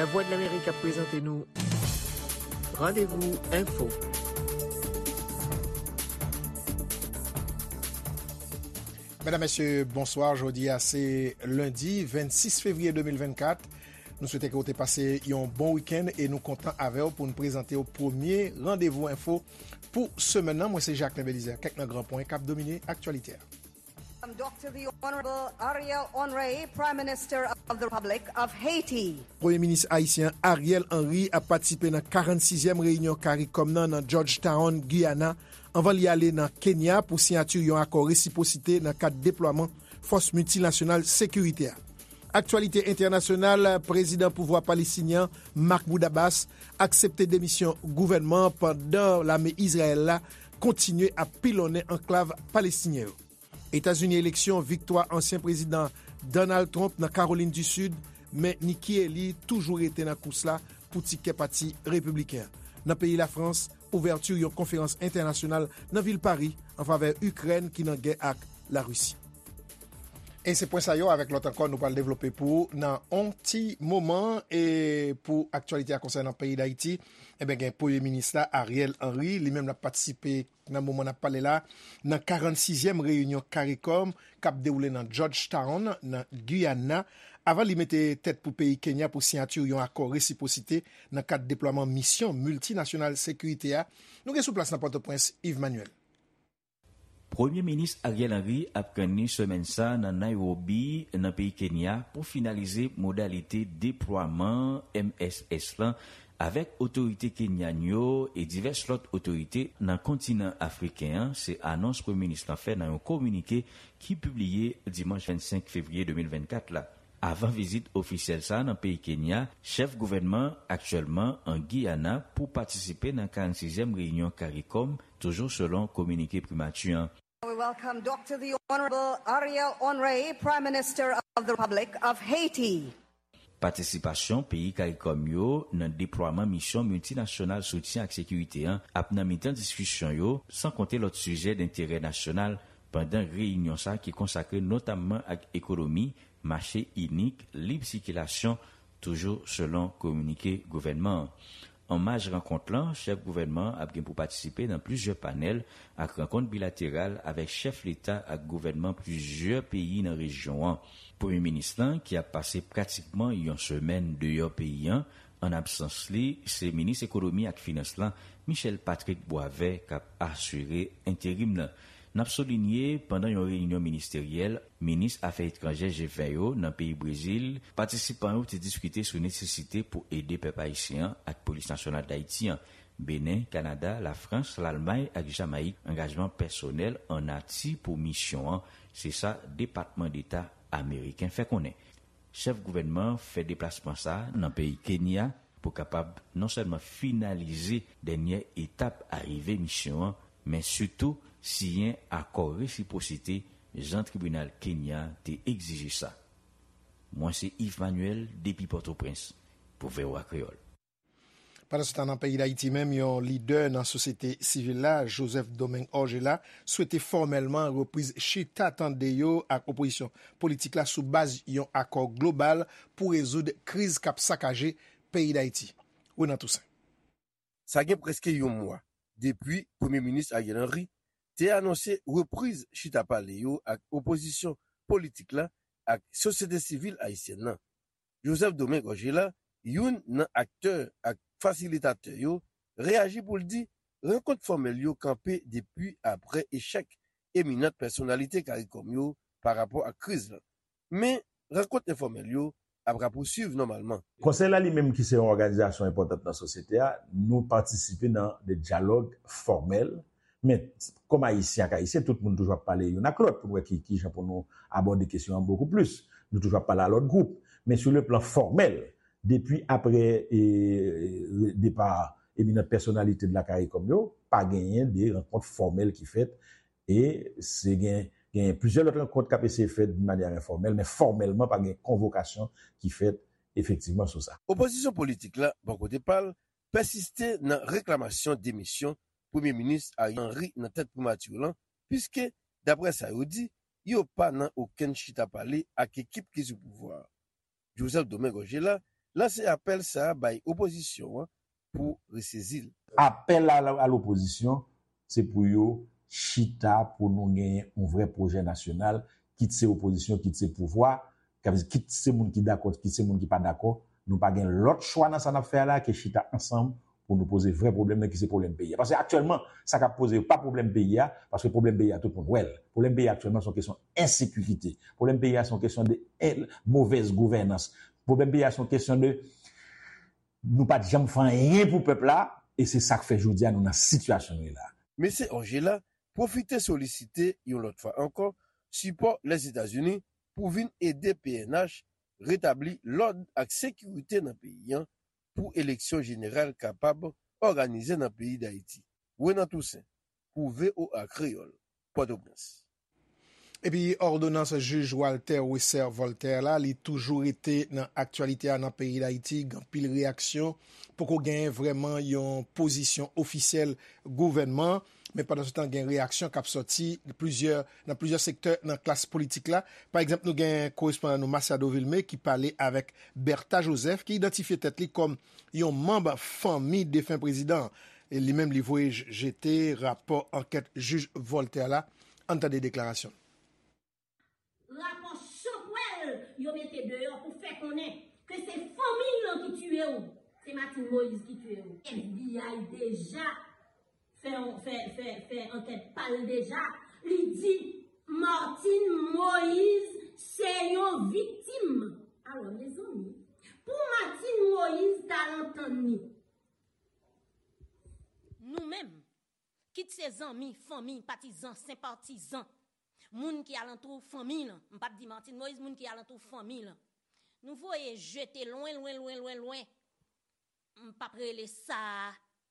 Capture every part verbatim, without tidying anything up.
Lavwadlamerik ap prezante nou Randevou Enfo. Medam, mesye, bonswa. Jodi a se lendi vennsis fevriye de mil vennkat. Nou swete ke w te pase yon bon wikenn e nou kontan avè w pou n prezante w premye Randevou Enfo pou semèn nan. Mwen se Jacquelin Belizaire. Kèk nan gran pwen k ap domine aktyalite a. Doctor the Honorable Ariel Henry, Prime Minister of the Republic of Haiti. Premye Minis ayisyen Ariel Henry ap patisipe nan karannsizyèm reyinyon CARICOM nan nan Georgetown, Guyana, anvan li ale nan Kenya pou siyati yon akò resipwosite nan kad deplwaman fòs miltinasyonal sekirite a. Aktyalite entènasyonal, prezidan pouvwa palestinyen an, Mahmoud Abbas, aksepte demisyon gouvènman an pandan lame Izrayèl la kontinye ap pilonnen anklav palestinyen yo. Etazini, eleksyon, viktwa ansyen prezidan Donald Trump nan Kawolin di Sid, men Nikki Haley toujou rete nan kous la pou tikè pati repibliken an. Nan peyi Lafrans, ouvèti yon konferans entènasyonal nan vil Pari an favè Ikrèn ki nan gè ak Larisi. E se pwen sa yo avèk lòt ankò nou pral devlope pou ou nan on ti moman. E pou aktyalite a konsènan peyi Dayiti, ebyen, gen Premye Minis la, Ariel Henry, li menm l ap patisipe nan moman n ap pale la nan karannsizyèm reyinyon CARICOM k ap dewoule nan Georgetown, nan Guyana, avan li mete tèt pou peyi Kenya pou siyati yon akò resipwosite nan kad deplwaman misyon miltinasyonal sekirite a. Nou gen sou plas nan Pòtoprens, Yves Manuel. Premye Minis Ariel Henry ap kanni semèn sa nan Nairobi, nan peyi Kenya, pou finalize modalite deplwaman M S S lan avèk otorite kenyan yo e divès lòt otorite nan kontinan afriken an, se anons Premye Minis lan fè nan yon kominike ki pibliye dimanch vennsenk fevriye de mil vennkat la. Avan vizit ofisyèl sa a nan peyi Kenya, chèf gouvènman an aktyèlman an Giyana pou patisipe nan karannsizyèm reyinyon CARICOM, toujou selon kominike primati an. We welcome Doctor the Honorable Ariel Henry, Prime Minister of the Republic of Haiti. Patisipasyon peyi CARICOM yo nan deplwaman misyon miltinasyonal soutyen ak sekirite an ap nan mitan diskisyon yo, san konte lòt sijè denterè nasyonal pandan reyinyon sa a ki konsakre notamman ak ekonomi, mache inik, lib sikilasyon, toujou selon kominike gouvènman an. An maj rankont lan, chèf gouvènman an ap gen pou patisipe nan plizyè panèl ak rankont bilateral avèk chèf leta ak gouvènman plizyè peyi nan rejyon an. Premye minis lan, ki ap pase pratikman yon semèn deyò peyi an, an absans li, se minis ekonomi ak finans lan, Michel Patrick Boisvert, k ap asire enterim nan. N ap soulinye, pandan yon reyinyon ministeryèl minis afè etranjè G ven yo nan peyi Brezil, patisipan yo te diskite sou nesesite pou ede pèp ayisyen an ak Polis Nasyonal Dayiti an. Benen, Kanada, Lafrans, Lalmay ak Jamayik, angajman pèsonèl an nati pou misyon an, se sa Depatman Deta ameriken fè konnen. Chèf gouvènman an fè deplasman sa a nan peyi Kenya pou kapab non sèlman finalize dènyè etap arive misyon an, men sitou siyen akò resipwosite jan tribinal Kenya te egzije sa. Mwen se Yves Manuel depi Pòtoprens pou V O A Kreyòl. Pandansetan, nan peyi Dayiti menm, yon lidè nan sosyete sivil la, Joseph Domingue Orgella, swete fòmèlman repriz chita tande yo ak opozisyon politik la sou baz yon akò global pou rezoud kriz k ap sakaje peyi Dayiti. Renan Toussaint. Sa gen prèske yon mwa depi Premye Minis Ariel Henry te anonse repriz chita pale yo ak opozisyon politik la ak sosyete sivil ayisyèn nan. Joseph Domingue Orgella, youn nan aktè ak fasilitatè yo, reyaji pou l di rankont fòmèl yo kanpe depi apre echèk eminant pèsonalite CARICOM yo pa rapò ak kriz lan. Men, rankont enfòmèl yo ap rapousuiv nòmalman. Konsèy la li menm ki se yon òganizasyon enpòtan nan sosyete a, nou patisipe nan de dyalòg fòmèl, men kòm Ayisyen ak Ayisyen, tout moun toujou ap pale youn ak lòt pou n wè ki, ki jan pou nou abòde kesyon an bokou plis. Nou toujou ap pale a lòt gwoup. Men sou le plan fòmèl, depi apre, e, depa eminant pèsonalite de la CARICOM yo, pa genyen de rankont fòmèl ki fèt. E se gen, gen plizyè lòt rankont k ap eseye fèt de manyè enfòmèl, men fòmèlman pa gen konvokasyon ki fèt efektivman sou sa. Opozisyon politik la, bò kote pa l, pèsiste nan reklamasyon demisyon Premye Minis Ariel Henry nan tèt primati lan, piske, daprè sa yo di, yo pa nan okenn chita pale ak ekip ki sou pouvwa a. Joseph Domingue Orgella lanse apèl sa a bay opozisyon an pou resezi l. Apèl a, a lopozisyon, se pou yo chita pou nou genyen yon vrè pwojè nasyonal, kit se opozisyon, kit se pouvwa, kit se moun ki dakò, kit se moun ki pa dakò. Nou pa gen lòt chwa nan sa n ap fè a la ke chita ansanm pou nou poze vrè pwoblèm nan ki se pwoblèm peyi a. Paske aktyèlman, sa k ap poze yo pa pwoblèm peyi a, paske pwoblèm peyi a tout moun wè l. Pwoblèm peyi a aktyèlman se yon kesyon ensekirite. Pwoblèm peyi a se yon kesyon de en-, movèz gouvènans. Pwoblèm peyi a se yon kesyon de nou pa t janm fè anyen pou pèp la, e se sa k fè jodi a nou nan sitiyasyon nou ye la. Mesye Orgella pwofite solisite yon lòt fwa ankò sipò Lèzetazini pou vin ede P N H retabli lòd ak sekirite nan peyi an pou eleksyon jeneral kapab òganize nan peyi Dayiti. Renan Toussaint, pou V O A Kreyòl, Pòtoprens. Epi òdonans jij Walter Wesser Voltaire la, li toujou rete nan aktyalite a nan peyi Dayiti. Gen anpil reyaksyon, poko genyen vrèman yon pozisyon ofisyèl gouvènman, men pandan se tan gen reyaksyon k ap sòti plizyè, nan plizyè sektè nan klas politik la. Pa egzanp, nou gen korespondan nou Masiado Vilmé ki pale avèk Bertha Joseph, ki idantifye tèt li kòm yon manm fanmi defen prezidan an. E li menm, li voye j-, jete rapò ankèt jij Voltaire la. Ann tande deklarasyon l. Rapò chanpwèl yo mete deyò pou fè konnen ke se fanmi l lan ki tiye w, se Martine Moïse ki tiye w. F B I deja fè, fè, fè, fè ankèt pa l deja. Li di Martine Moïse se yon viktim. Alò, mezanmi, pou Martine Moïse t al antann li, nou menm, kit se zanmi, fanmi, patizan, senpatizan, moun ki alantou fanmi lan, m p ap di Martine Moïse, moun ki alantou fanmi lan, nou voye jete lwen, lwen, lwen, lwen, lwen. M p ap rele sa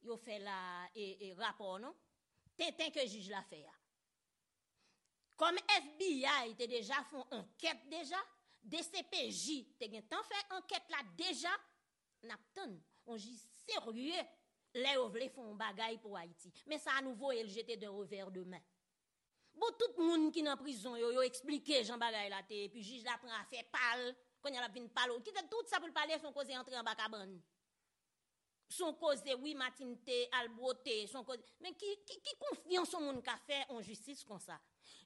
yo fè la, e, e, rapò, non. Tenten ke jij la fè a. Kòm F B I te deja fè yon ankèt deja, D C P J te gentan fè ankèt la deja, n ap tann yon jij serye lè yo vle fè yon bagay pou Ayiti. Men sa a, nou voye l jete d'un revers de main. Bon, tout moun ki nan prizon yo, yo eksplike jan bagay la te ye, epi jij la pran afè pa l, kounye a l ap vin pale w. Kite tout sa pou l pale, se yon koze antre anba kabann. Se yon koze, wi, Martine te al bwote, se yon koze. Men ki, ki, ki konfyans yon moun ka fè yon jistis konsa?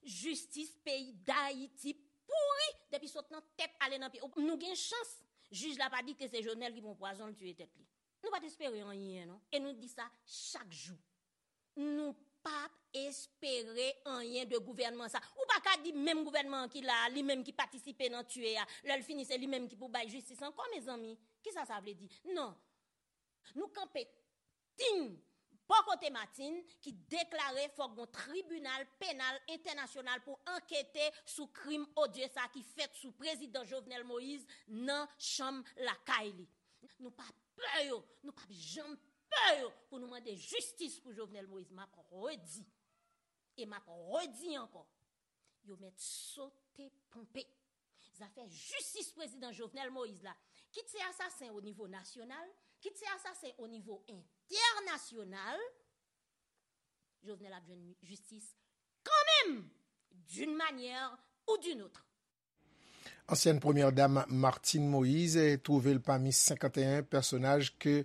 Jistis peyi Dayiti pouri depi sot nan tèt ale nan pye. Nou gen chans, jij la pa di ke se Jovenel ki pran pwazon l tiye tèt li. Nou pa t espere anyen, non. E nou di sa chak jou. Nou p ap espere anyen de gouvènman sa. Ou pa ka di menm gouvènman an ki la a, li menm ki patisipe nan tiye a, lè l fini, se li menm ki pou bay jistis ankò, mezanmi. Kisa sa vle di? Non. Nou kanpe tin bò kote Martine ki deklare fòk gon tribinal penal entènasyonal pou ankete sou krim odye sa ki fèt sou prezidan Jovenel Moïse nan chanm lakay li. Nou pa pè yo, nou p ap janm pè yo pou nou mande jistis pou Jovenel Moïse. M ap redi, e m ap redi ankò, yo mèt sote ponpe. Zafè jistis prezidan Jovenel Moïse la, kit se asasen o nivo nasyonal, kit se asasen o nivo entènasyonal, Jovenel ap jwenn jistis kanmenm, d'une manière ou d'une autre. Ansyèn premyè dam Martine Moïse twouve l pami senkanteyen pèsonaj ke,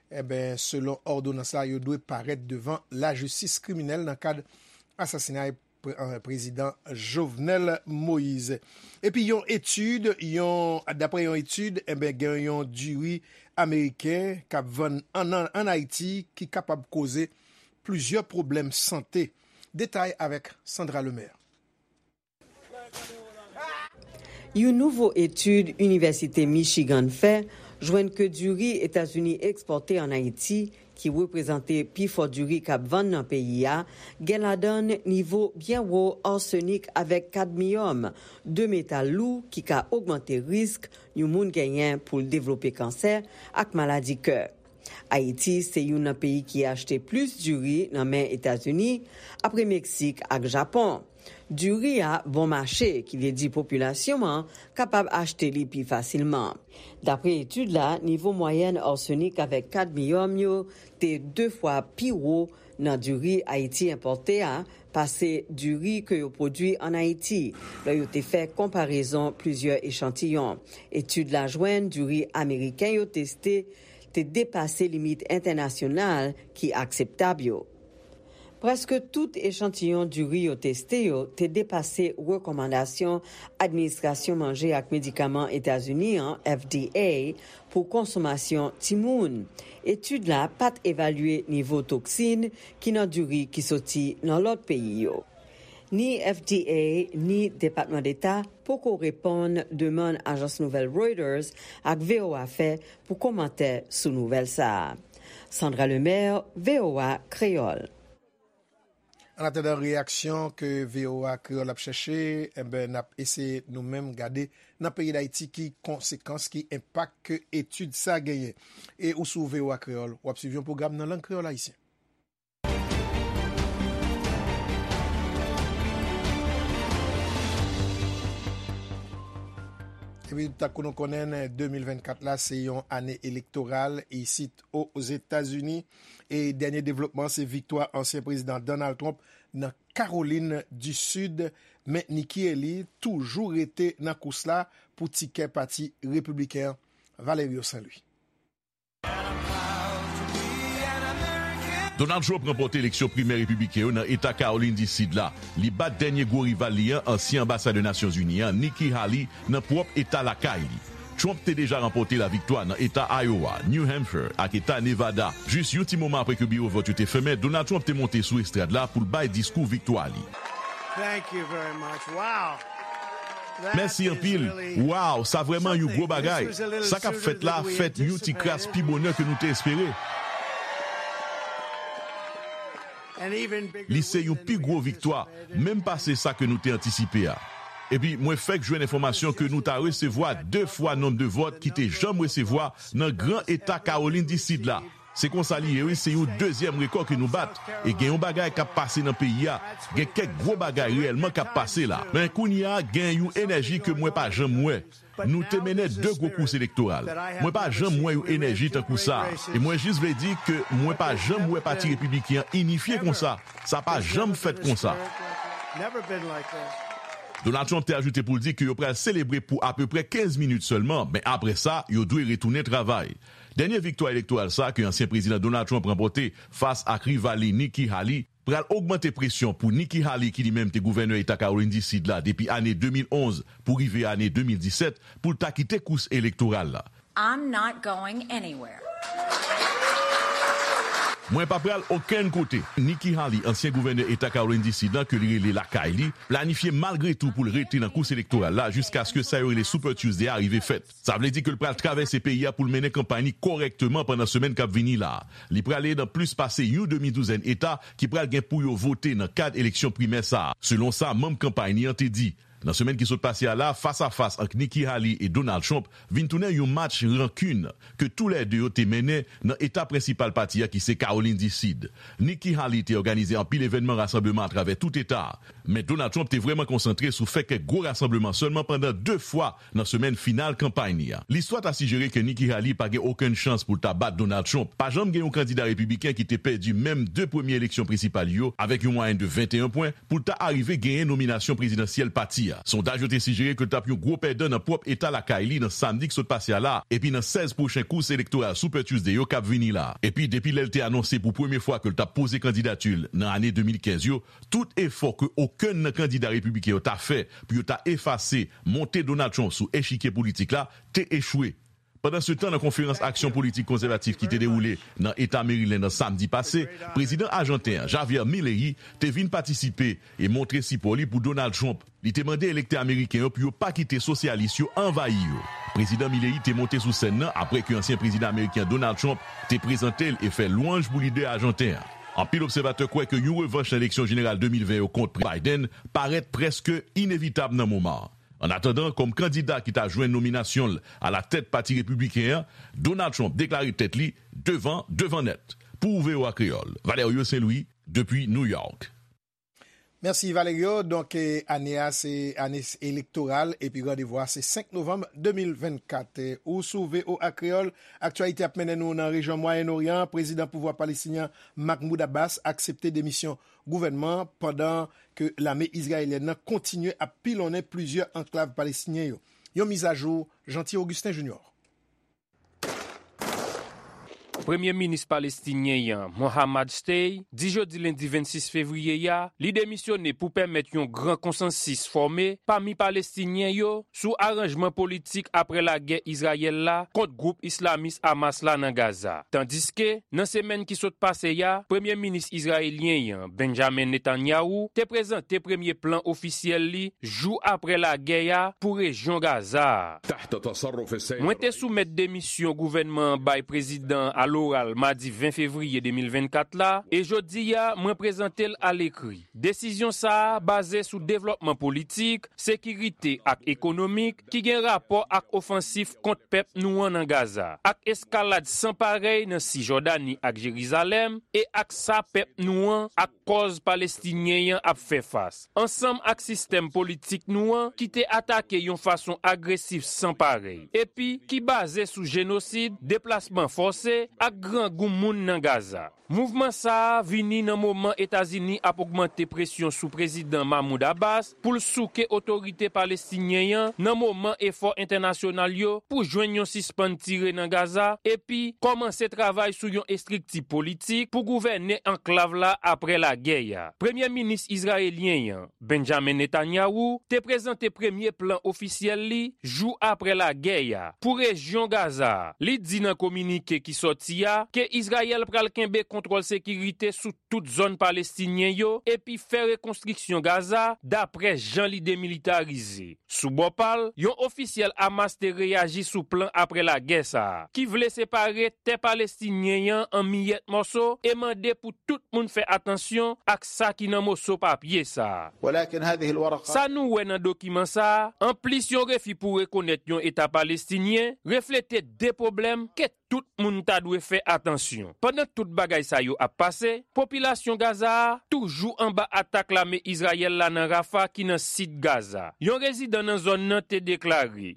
enben, selon òdonans la, yo dwe parèt devan lajistis kriminèl nan kad asasinay pre-, eh, prezidan Jovenel Moïse. Epi yon etid, yon, daprè yon etid, enben, gen yon diri ameriken k ap vann ann, ann Ayiti ki kapab koze plizyè pwoblèm sante. Detay avèk Sandra Lemaire. Yon nouvo etid Inivèsite Michigan fè jwenn ke diri Etazini ekspòte ann Ayiti, ki reprezante pifò diri k ap vann nan peyi a, gen ladan l nivo byen wo arsenik avèk kadmiyòm, de metal lou ki ka ogmante risk yon moun genyen pou l devlope kansè ak maladi kè. Ayiti se youn nan peyi ki achte plis diri nan men Etazini, apre Meksik ak Japon. Diri a bon mache, ki vle di popilasyon an kapab achte li pi fasilman. Dapre etid la, nivo mwayèn arsenik avèk kadmiyòm yo te de fwa pi wo nan diri Ayiti enpòte a pase diri ke yo pwodui ann Ayiti, lè yo te fè konparezon plizyè echantiyon. Etid la jwenn diri ameriken yo teste te depase limit entènasyonal ki akseptab yo. Prèske tout echantiyon diri yo teste yo te depase rekòmandasyon Administrasyon Manje ak Medikaman Etazini an, F D A, pou konsomasyon timoun. Etid la pa t evalye nivo toksin ki nan diri ki soti nan lòt peyi yo. Ni F D A, ni Depatman Deta poko reponn demann ajans nouvèl Reuters ak V O A fè pou kòmantè sou nouvèl sa a. Sandra Lemaire, V O A Kreyòl. Annatandan reyaksyon ke V O A Kreyòl ap chèche, enben, n ap eseye nou menm gade nan peyi Dayiti ki konsekans, ki enpak ke etid sa genyen. E ou sou V O A Kreyòl, w ap swiv yon pwogram nan lang kreyòl ayisyen. Epi, tankou nou konnen, de mil vennkat la, se yon ane elektoral isit Ozetazini. E dènye devlopman, se viktwa ansyen prezidan Donald Trump nan Kawolin di Sid. Men Nikki Haley toujou rete nan kous la pou tikè pati repibliken an. Valerio Saint Louis. Donald Trump ranpòte eleksyon primè repibliken yo nan eta Kawolin di Sid la. Li bat dènye gwo rival li an, ansyen anbasadè Nasyonzini an, Nikki Haley, nan pwòp eta lakay li. Trump te deja ranpòte laviktwa nan eta Iowa, New Hampshire ak eta Nevada. Jis yon ti moman apre ke biwo vòt yo te fèmen, Donald Trump te monte sou estrad la pou l bay diskou viktwa li. Mèsi anpil. Wow, sa vrèman yon gwo bagay. Sa k ap fèt la fèt yon ti kras pi bonè ke nou te espere. Li se yon pi gwo viktwa, menm pase sa ke nou te antisipe a. Epi, mwen fèk jwenn enfòmasyon ke nou ta resevwa de fwa nonb de vòt ki te janm resevwa nan gran eta Kawolin di Sid la. Se konsa li ye, wi, se yon dezyèm rekò ke nou bat. E gen yon bagay k ap pase nan peyi a. Gen kèk gwo bagay reyèlman k ap pase la. Men kounye a, gen yon enèji ke mwen pa janm wè. Nou te mennen de gwo kous elektoral. Mwen pa janm wè yon enèji tankou sa a. E mwen jis vle di ke mwen pa janm wè Pati Repibliken an inifye konsa. Sa pa janm fèt konsa. Donald Trump te ajoute pou l di ke yo pral selebre pou apeprè kenz minit sèlman, men apre sa, yo dwe retounen travay. Dènye viktwa elektoral sa a ke ansyen prezidan Donald Trump ranpòte fas ak rival li Nikki Haley pral ogmante presyon pou Nikki Haley, ki li menm te gouvènè eta Kawolin di Sid la depi ane de mil onz pou rive ane de mil disèt, pou l ta kite kous elektoral la. I'm not going anywhere. Mwen pa pral okenn kote. Nikki Haley, ansyen gouvènè eta Kawolin di Sid la ke li rele lakay li, planifye malgre tou pou l rete nan kous elektoral la jiskaske sa yo rele Super Tuesday a rive fèt. Sa vle di ke l pral travèse peyi a pou l mennen kanpay li kòrèkteman pandan semèn k ap vini la a. Li prale nan plis pase yon demi douzèn eta ki pral gen pou yo vote nan kad eleksyon primè sa a, selon sa manm kanpay li an te di. Nan semèn ki sot pase a la, fas a fas ant Nikki Haley e Donald Trump vin tounen yon match rankin ke toulède yo te mennen nan eta prensipal pati a ki se Kawolin di Sid. Nikki Haley te òganize anpil evènman rasanbleman atravè tout eta a. Men Donald Trump te vrèman konsantre sou fè kèk gwo rasanbleman sèlman pandan de fwa nan semèn final kanpay li a. Listwa ta sijere ke Nikki Haley pa gen okenn chans pou l ta bat Donald Trump. Pa janm gen yon kandida repibliken ki te pèdi menm de premye eleksyon prensipal yo avèk yon mwayèn de venteyen pwen pou l ta arive genyen nominasyon prezidansyèl pati a. Sondaj yo te sijere ke l t ap yon gwo pèdan nan pwòp eta lakay li nan samdi k sot pase a la, epi nan sèz pwochen kous elektoral Super Tuesday yo k ap vini la. Epi depi lè l te anonse pou premye fwa ke l t ap poze kandidati l nan ane de mil kenz yo, tout efò ke okenn nan kandida repibliken yo ta fè pou yo ta efase monte Donald Trump sou echikye politik la te echwe. Pandansetan, nan konferans aksyon politik konsèvatif ki te dewoule nan eta Maryland an samdi pase, prezidan ajanten an, Javier Milei, te vin patisipe e montre sipò li pou Donald Trump. Li te mande elektè ameriken yo pou yo pa kite sosyalis yo anvayi yo. Prezidan Milei te monte sou sèn nan apre ke ansyen prezidan ameriken Donald Trump te prezante l e fè lwanj pou lidè ajanten an. Anpil obsèvatè kwè ke yon revanch nan eleksyon jeneral de mil ven yo kont Biden parèt prèske inevitab nan moman an. Annatandan, kòm kandida ki ta jwenn nominasyon l alatèt Pati Repibliken an, Donald Trump deklare tèt li devan, devan nèt. Pou V O A Kreyòl, Valerio Saint Louis, depi New York. Mèsi Valerio. Donk, eh, ane a se ane elektoral epi randevou a se senk novanm de mil vennkat. Eh, ou sou V O A Kreyòl, aktyalite ap mennen nou nan rejyon Mwayen Oryan. Prezidan pouvwa palestinyen Mahmoud Abbas aksepte demisyon gouvènman pandan ke lame izrayelyèn nan kontinye ap pilonnen plizyè anklav palestinyen yo. Yon mizajou, Jeanty Augustin Junior. Premye minis palestinyen an, Mohammad Shtey, di jodi lendi vennsis fevriye a, li demisyone pou pèmèt yon gran konsansis fòme pami Palestinyen yo sou aranjman politik apre lagè Izrayèl la kont gwoup islamis Hamas la nan Gaza. Tandiske, nan semèn ki sot pase a, Premye Minis Izrayelyen an, Benjamin Netanyahu, te prezante premye plan ofisyèl li jou apre lagè a pou rejyon Gaza a. Mwen te soumèt demisyon gouvènman an bay prezidan an aloral madi ven fevriye de mil vennkat la, e jodi a, mwen prezante l alekri. Desizyon sa a baze sou devlòpman politik, sekirite ak ekonomik ki gen rapò ak ofansif kont pèp nou an nan Gaza, ak eskalad san parèy nan Sijòdani ak Jerizalèm, e ak sa pèp nou an ak kòz palestinyen an ap fè fas, ansanm ak sistèm politik nou an ki te atake yon fason agresif san parèy, epi ki baze sou jenosid, deplasman fòse, ak grangou moun nan Gaza. Mouvman sa a vini nan moman Etazini ap ogmante presyon sou Prezidan Mahmoud Abbas pou l souke otorite palestinyen an nan moman efò entènasyonal yo pou jwenn yon sispann tire nan Gaza epi kòmanse travay sou yon estrikti politik pou gouvène anklav la apre lagè a. Premye minis izrayelyen an, Benjamin Netanyahu, te prezante premye plan ofisyèl li jou apre lagè a pou rejyon Gaza a. Li di nan kominike ki sòti a ke Izrayèl pral kenbe kontwòl sekirite sou tout zòn palestinyen yo epi fè rekonstriksyon Gaza dapre jan li demilitarize. Sou bò pa l, yon ofisyèl Hamas te reyaji sou plan apre lagè sa a, ki vle separe tè palestinyen an an miyèt mòso e mande pou tout moun fè atansyon ak sa ki nan moso papye sa a. Sa nou wè nan dokiman sa a, anplis yon refi pou rekonèt yon Eta palestinyen, reflete de pwoblèm ke tout moun ta dwe fè atansyon. Pandan tout bagay sa yo ap pase, popilasyon Gaza a toujou anba atak lame Izrayèl la nan Rafa ki nan sid Gaza. Yon rezidan nan zòn nan te deklare,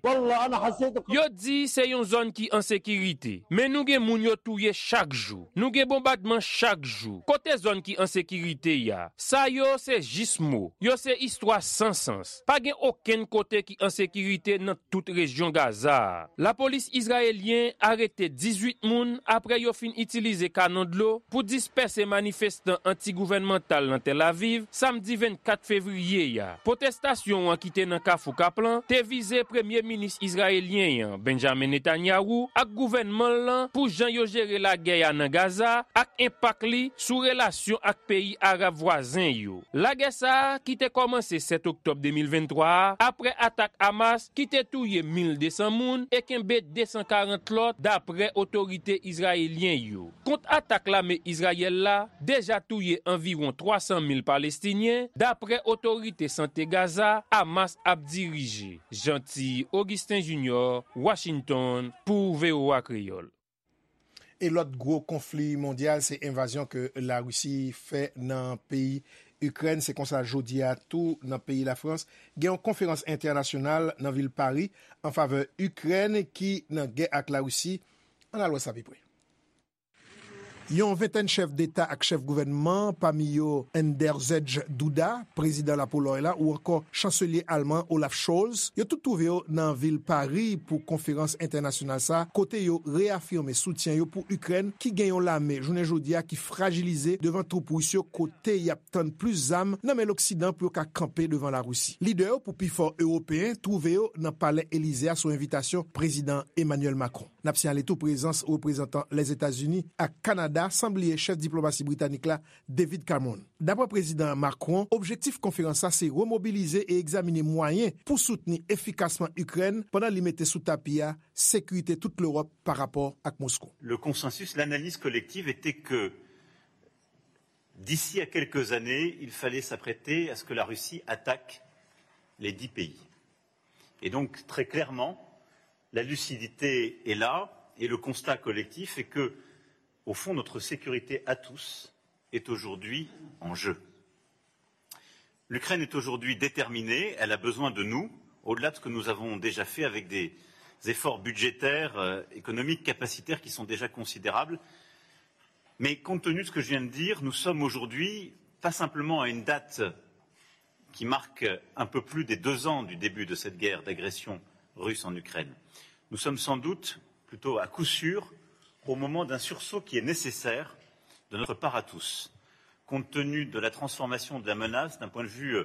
Yo di se yon zòn ki an sekirite, men nou gen moun yo touye chak jou. Nou gen bonbadman chak jou. Kote zòn ki an sekirite a? Sa yo se jis mo. Yo se istwa san sans. Pa gen okenn kote ki an sekirite nan tout rejyon Gaza a. Lapolis izrayelyen arete dizuit moun apre yo fin itilize kanon dlo pou dispèse manifestan anti-gouvènmantal nan Tel Aviv samdi vennkat fevriye a. Pwotestasyon an ki te nan Kafou Kaplan te vize premye minis izrayelyen an, Benjamin Netanyahu, ak gouvènman l lan pou jan yo jere lagè a nan Gaza ak enpak li sou relasyon ak peyi arab vwazen yo. Lagè sa a, ki te kòmanse sèt oktòb de mil venntwa a, apre atak Hamas ki te touye mil de san moun e kenbe de san karant lòt, dapre otorite izrayelyen yo. Kont atak lame Izrayèl la, deja touye anviwon twa san mil Palestinyen, dapre otorite sante Gaza Hamas ap dirije. Jeanty Augustin Junior, Washington, pou V O A Kreyòl. E lòt gwo konfli mondyal se envazyon ke Larisi fè nan peyi Ikrèn. Se konsa jodi a tou nan peyi Lafrans, gen yon konferans entènasyonal nan vil Pari an favè Ikrèn ki nan gè ak Larisi. Ann al wè sa pi pre. Yon ventèn chèf deta ak chèf gouvènman, pami yo Andrzej Duda, prezidan Lapolòy la, ou ankò chanselye alman Olaf Scholz, yo tout twouve yo nan vil Pari pou konferans entènasyonal sa a, kote yo reyafime soutyen yo pou Ikrèn ki gen yon lame jounen jodi a ki frajilize devan twoup ris yo kote y ap tann plis zam nan men Loksidan pou yo ka kanpe devan Larisi. Lidè yo pou pifò ewopeyen twouve yo nan Palè Elize a sou envitasyon Prezidan Emmanuel Macron. N ap siyale tou prezans reprezantan Lèzetazini ak Kanada, san bliye chèf diplomasi britanik la, David Cameron. Dapre Prezidan Macron, objektif konferans sa se remobilize e egzamine mwayen pou soutni efikasman Ikrèn pandan li mete sou tapi a sekirite tout Lewòp pa rapò ak Moskou. Le consensus, l'analyse collective était que d'ici à quelques années, il fallait s'apprêter à ce que la Russie attaque les dix pays. Et donc, très clairement, la lucidité est là et le constat collectif est que, au fond, notre sécurité à tous est aujourd'hui en jeu. L'Ukraine est aujourd'hui déterminée, elle a besoin de nous, au-delà de ce que nous avons déjà fait avec des efforts budgétaires, euh, économiques, capacitaires qui sont déjà considérables. Mais compte tenu de ce que je viens de dire, nous sommes aujourd'hui pas simplement à une date qui marque un peu plus des deux ans du début de cette guerre d'agression russe en Ukraine. Nous sommes sans doute, plutôt à coup sûr, au moment d'un sursaut qui est nécessaire de notre part à tous, compte tenu de la transformation de la menace d'un point de vue, euh,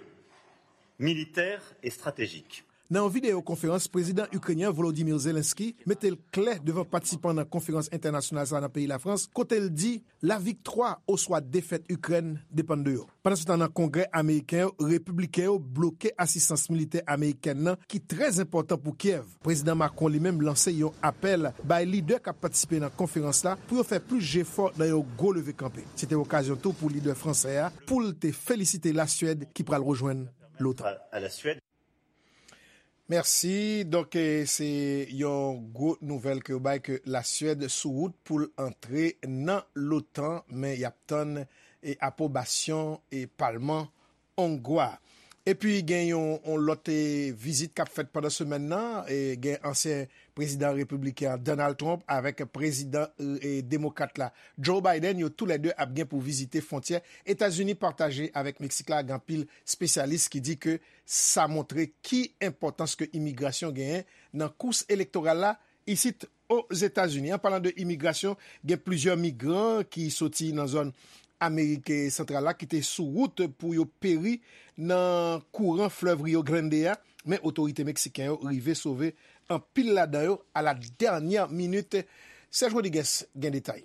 militaire et stratégique. Nan yon videyo konferans, prezidan ikrenyen Volodymyr Zelensky mete l klè devan patisipan nan konferans entènasyonal sa a nan peyi Lafrans, kote l di, laviktwa oswa defèt Ikrèn depann de yo. Pandansetan, nan Kongrè ameriken yo, repibliken yo bloke asistans militè amerikèn nan, ki trè enpòtan pou Kyèv. Prezidan Macron li menm lanse yon apèl bay lidè k ap patisipe nan konferans la pou yo fè plis jefò nan yon gwo leve kanpe. Se te okazyon tou pou lidè fransè a pou l te felisite Laswèd ki pral rejwenn l'OTAN. Mèsi. Donk, eh, se yon gwo nouvèl ke yo bay ke Laswèd sou wout pou l antre nan l'OTAN, men y ap tann, eh, apwobasyon, eh, palman ongwa. Epi gen yon, yon lòt, eh, vizit k ap fèt pandan semèn nan, eh, gen ansyen prezidan repibliken an, Donald Trump, avèk prezidan, eh, demokrat la, Joe Biden, yo toulède ap gen pou vizite fwontyè Etazini pataje avèk Meksik la. Gen anpil espesyalis ki di ke sa montre ki enpòtans ke imigrasyon genyen nan kous elektoral la isit Ozetazini. An palan de imigrasyon, gen plizyè migran ki soti nan zòn Amerik Santral la ki te sou wout pou yo peri nan kouran flèv Rio Grande a, men otorite meksiken yo rive sove anpil ladan yo à la dernière minute. Serge Rodriguez gen detay.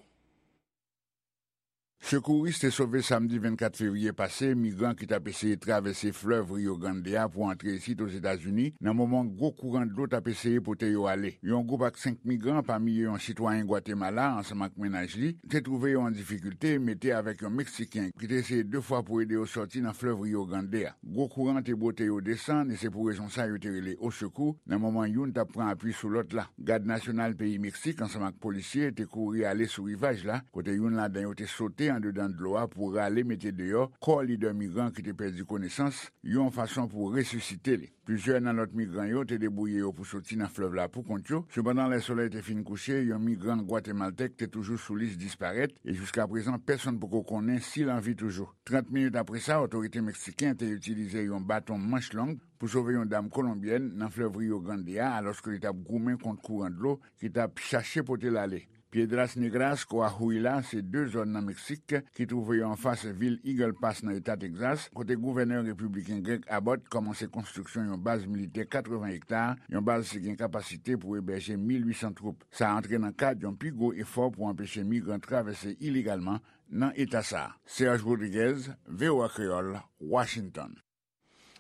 Sekouris te sove samdi vennkat fevriye pase migran ki t ap eseye travèse flèv Rio Grande a pou antre isit Ozetazini, nan moman gwo kouran dlo t ap eseye pote yo ale. Yon gwoup ak senk migran, pami yo yon sitwayen Gwatemala, ansanm ak mennaj li, te twouve yo an difikilte, mete avèk yon Meksiken ki te eseye de fwa pou ede yo sòti nan flèv Rio Grande a. Gwo kouran te bwote yo desann, e se pou rezon sa yo te rele osekou, nan moman youn t ap pran apui sou lòt la. Gad Nasyonal peyi Meksik, ansanm ak polisye, te kouri ale sou rivaj la, kote youn ladan yo te sote andedan dlo a pou rale mete deyò kò lidè migran ki te pèdi konesans, yon fason pou resisite li. Plizyè nan lòt migran yo te debouye yo pou soti nan flèv la pou kont yo. Sepandan, lè solèy te fin kouche, yon migran gwatemaltèk te toujou sou lis disparèt, e jiskaprezan, pèsonn poko konnen si l an vi toujou. Trant minit apre sa, otorite meksiken te itilize yon baton manch long pou sove yon dam kolonbyèn nan flèv Rio Grande a, alòske li t ap goumen kont kouran dlo ki t ap chache pote l ale. Piedras Negras, Coahuila, se de zòn nan Meksik ki twouve yo anfas vil Eagle Pass nan eta Texas, kote gouvènè repibliken Greg Abbott kòmanse konstriksyon yon baz militè katreven ekta, yon baz ki gen kapasite pou ebèje mil uit san twoup. Sa antre nan kad yon pi gwo efò pou anpeche migran travèse ilegalman nan eta sa a. Serge Rodriguez, V O A Kreyòl, Washington.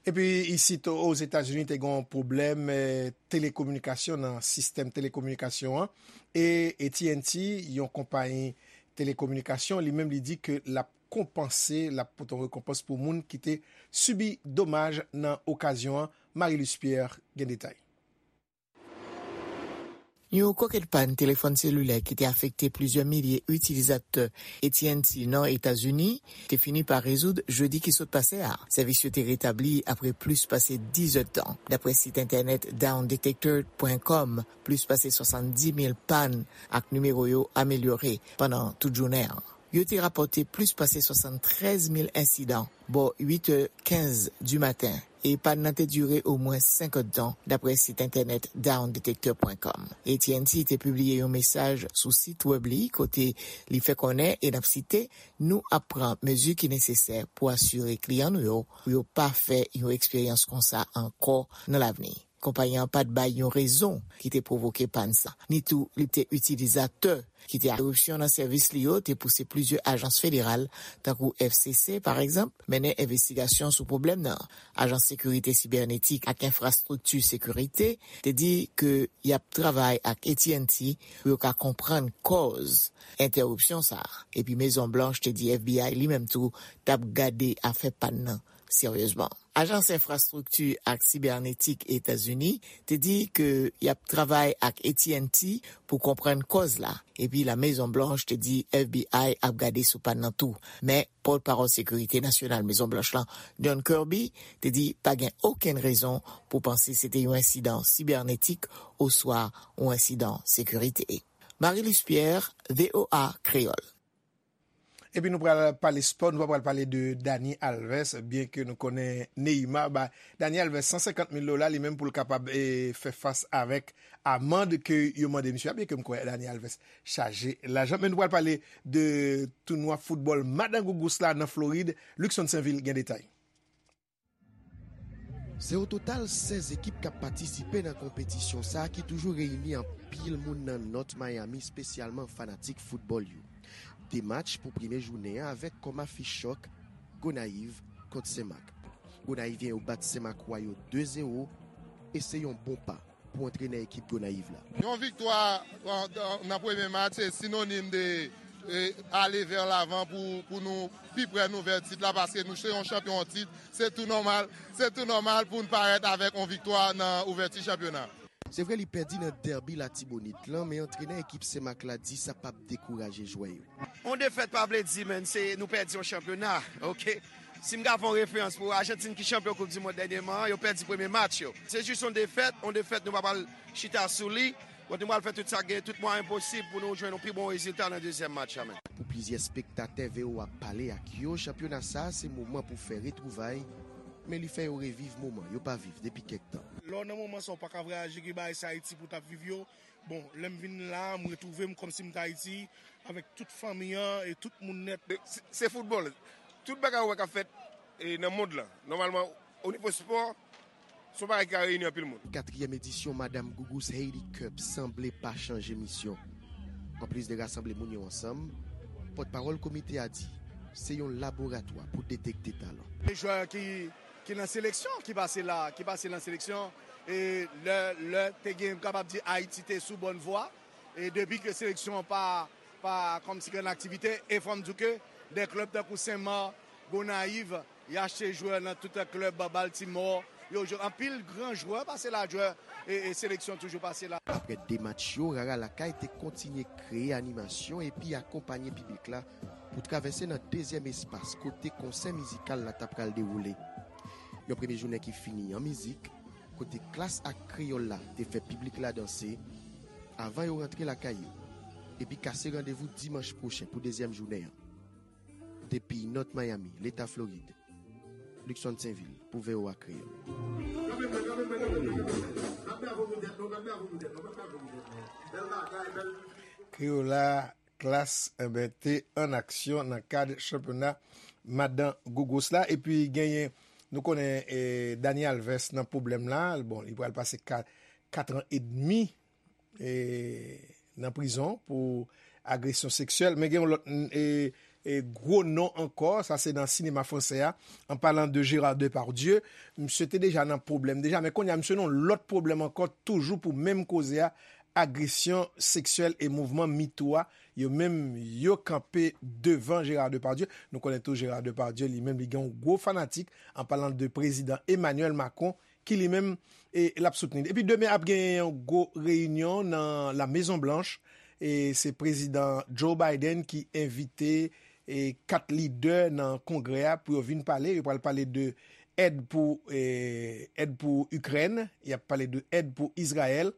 Epi isit Ozetazini te gen yon pwoblèm, eh, telekominikasyon nan sistèm telekominikasyon an. E A T and T, yon konpayi telekominikasyon, li menm li di ke l ap konpanse, l ap pote yon rekonpans pou moun ki te sibi domaj nan okazyon an. Marie Luce Pierre gen detay. Yon kokèt pàn telefòn selilè ki te afekte plizyè milye itilizatè A T and T nan Etazini te fini pa rezoud jedi ki sot pase a. Sèvis yo te retabli apre plis pase diz èdtan, dapre sit entènèt down detector point com. Plis pase swasanndis mil pàn ak nimewo yo amelyore pandan tout jounen an. Yo te rapòte plis pase swasanntrèz mil ensidan bò uit è kenz di maten, e pàn nan te dire omwen senk èdtan, dapre sit entènèt down detector point com. A T and T te pibliye yon mesaj sou sit wèb li kote li fè konnen, e n ap site, "Nou ap pran mezi ki nesesè pou asire kliyan nou yo pou yo pa fè yon eksperyans konsa ankò nan lavni." Konpayi an pa t bay yon rezon ki te pwovoke pàn sa, ni tou li te itilizatè ki te entèripsyon nan sèvis li yo te pouse plizyè ajans federal, tankou F C C, pa egzanp, mennen envestigasyon sou pwoblèm nan. Ajans Sekirite Sibènetik ak Enfrastrikti Sekirite te di ke y ap travay ak A T and T pou yo ka konprann kòz entèripsyon sa a. Epi Mezon Blanch te di F B I li menm tou t ap gade afè pàn nan seryezman. Ajans Enfrastrikti ak Sibènetik Etazini te di ke y ap travay ak A T and T pou konprann kòz la, epi La Mezon Blanch te di F B I ap gade sou pàn nan tou. Men, pòtpawòl Sekirite Nasyonal Mezon Blanch lan, John Kirby, te di pa gen okenn rezon pou panse se te yon ensidan sibènetik oswa yon ensidan sekirite. Marie-Luce Pierre, V O A Kreyòl. Epi nou pral pale spò, nou pa pral pale de Dani Alves, byen ke nou konnen Neymar ba Dani Alves san senkant mil dola, li menm pou l kapab, e, fè fas avèk amann ke yo mande misye a, byen ke m kwè Dani Alves chaje lajan. Men nou pral pale de tounwa foutbòl Madan Gougous la nan Florid. Luckson Sainvil gen detay. Se o total sèz ekip k ap patisipe nan konpetisyon sa a ki toujou reyini anpil moun nan North Miami, espesyalman fanatik foutbòl yo. De match pou premye jounen an avèk kòm afich chòk Gonayiv kont Senmak. Gonayiv yo bat Senmakwa yo de zewo e se yon bon pa pou antrenè ekip Gonayiv la. Yon viktwa nan, nan premye match se sinonim de, e, ale vè lavan pou, pou nou pi pre nou vè tit la, paske nou se yon chanpyon an tit. Se tou nòmal, se tou nòmal pou n parèt avèk yon viktwa nan ouvèti chanpyona. Se vre li pèdi nan dèbi Latibonit lan, men antrenè ekip Senmak la di sa p ap dekouraje jwè yo. On defèt pa vle di, menn, se nou pèdi yon chanpyona, oke? Si m ka fè yon referans pou Ajantin ki chanpyon Koup di Mond dènyèman an, yo pèdi premye match yo. Se jis yon defèt, yon defèt nou pa pral chita sou li. Bon, nou pral fè tout sa k gen, tout mwayen posib pou nou jwenn yon pi bon rezilta nan dezyèm match la, menn. Pou plizyè spektatè V O A pale ak yo, chanpyona sa a se moman pou fè retwouvay, men li fè yo reviv moman yo pa viv depi kèk tan. Lè w nan moman sa, w pa ka vwayaje, gen bagay se Ayiti pou w t ap viv yo. Bon, lè m vin la, m retwouve m kòmsi m t Ayiti, avèk tout fanmi an e tout moun nèt. Se, se foutbòl. Tout bagay ou wè k ap fèt, e, nan mond lan, nòmalman, o nivo spò, se yon bagay ki ka reyini anpil moun. Katriyèm edisyon Madam Gougous Haiti Cup sanble pa chanje misyon. Anplis de rasanble moun yo ansanm, pòtpawòl komite a di se yon laboratwa pou detekte talan. Jwè ki, ki nan seleksyon, ki pase la, ki pase nan seleksyon, e lè, lè te gen, m kapab di Ayiti te sou bòn vwa, e depi ke seleksyon an pa, pa kòmsi gen aktivite, e fò m di w ke de klèb tankou Senmak, Gonayiv, y achte jwè nan tout klèb Baltimore, yo jwe anpil gran jwè pase la, jwè e, e seleksyon toujou pase la. Aprè de match yo, Rara Lakay te kontinye kreye animasyon epi akonpanye piblik la pou travèse nan dezyèm espas kote konsè mizikal la ta pral dewoule. Yon premye jounen ki fini an mizik, kote Klass ak Kreyòl la te fè piblik la danse, avan yo rantre lakay yo, epi kase randevou dimanch pwochen pou dezyèm jounen an. Depi North Miami, Leta Florid, Luckson Sainvil pou V O A Kreyòl. Kreyòl la, Klass, enben, te an aksyon nan kad chanpyona Madan Gougous la. Epi genyen, nou konnen, e, Dani Alves nan pwoblèm la. Bon, li pral pase ka-, kat an edmi, e, nan prizon pou agresyon seksyèl. Men gen yon lòt, e, e, gwo non ankò, sa se nan sinema fransè a, an palan de Gérard Depardieu. Misye te deja nan pwoblèm deja, men kounye a misye nan yon lòt pwoblèm ankò, toujou pou menm koze a, agresyon seksyèl e mouvman MeToo a, yo menm yo kanpe devan Gérard Depardieu. Nou konnen tou Gérard Depardieu, li menm, li gen yon gwo fanatik, an palan de prezidan Emmanuel Macron, ki li menm, e, l ap soutni. Epi demen ap gen yon gwo reyinyon nan La Mezon Blanch, e se prezidan Joe Biden ki envite, e, kat lidè nan kongrè a pou yo vin pale. Yo pral pale de èd pou, e, èd pou Ikrèn, y ap pale de èd pou Izrayèl,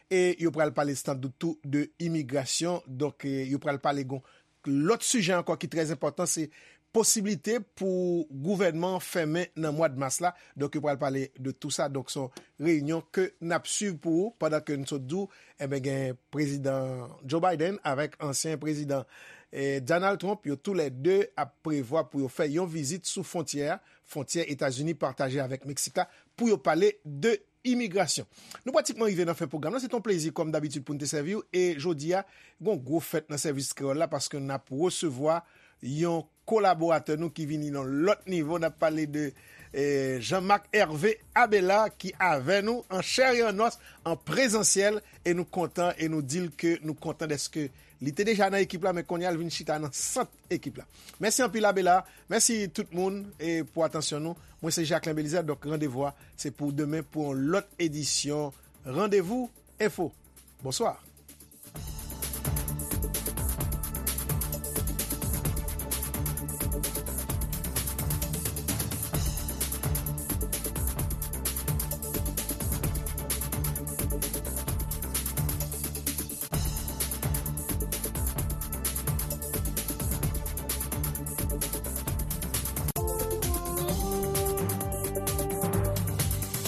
e yo pral pale sandout tou de imigrasyon. Donk, e, yo pral pale gon lòt sijè ankò ki trè enpòtan, se posiblite pou gouvènman an fèmen nan mwa d mas la. Donk, yo pral pale de tou sa. Donk, se yon reyinyon ke n ap swiv pou ou pandan ke n sot di w, enben, gen prezidan Joe Biden avèk ansyen prezidan, e, Donald Trump. Yo toulède ap prevwa pou yo fè yon vizit sou fwontyè a, fwontyè Etazini pataje avèk Meksik la, pou yo pale de imigrasyon. Nou pratikman rive nan fen pwogram nan. Se t on plezi, kòm dabitid, pou n te sèvi w. E jodi a, gen yon gwo fèt nan sèvis kreyòl la, paske n ap resevwa yon kolaboratè nou ki vini nan lòt nivo. N ap pale de, eh, Jean-Marc Hervé Abela ki avè nou an chè e an nòs, an prezansyèl, e nou kontan, e nou di l ke nou kontan dèske li te deja nan ekip la, men kounye a l vin chita nan sant ekip la. Mèsi anpil Abela, mèsi tout moun e pou atansyon nou. Mwen se Jacquelin Belizaire, donk randevou a se pou demen pou yon lòt edisyon Randevou Enfo. Bonswa.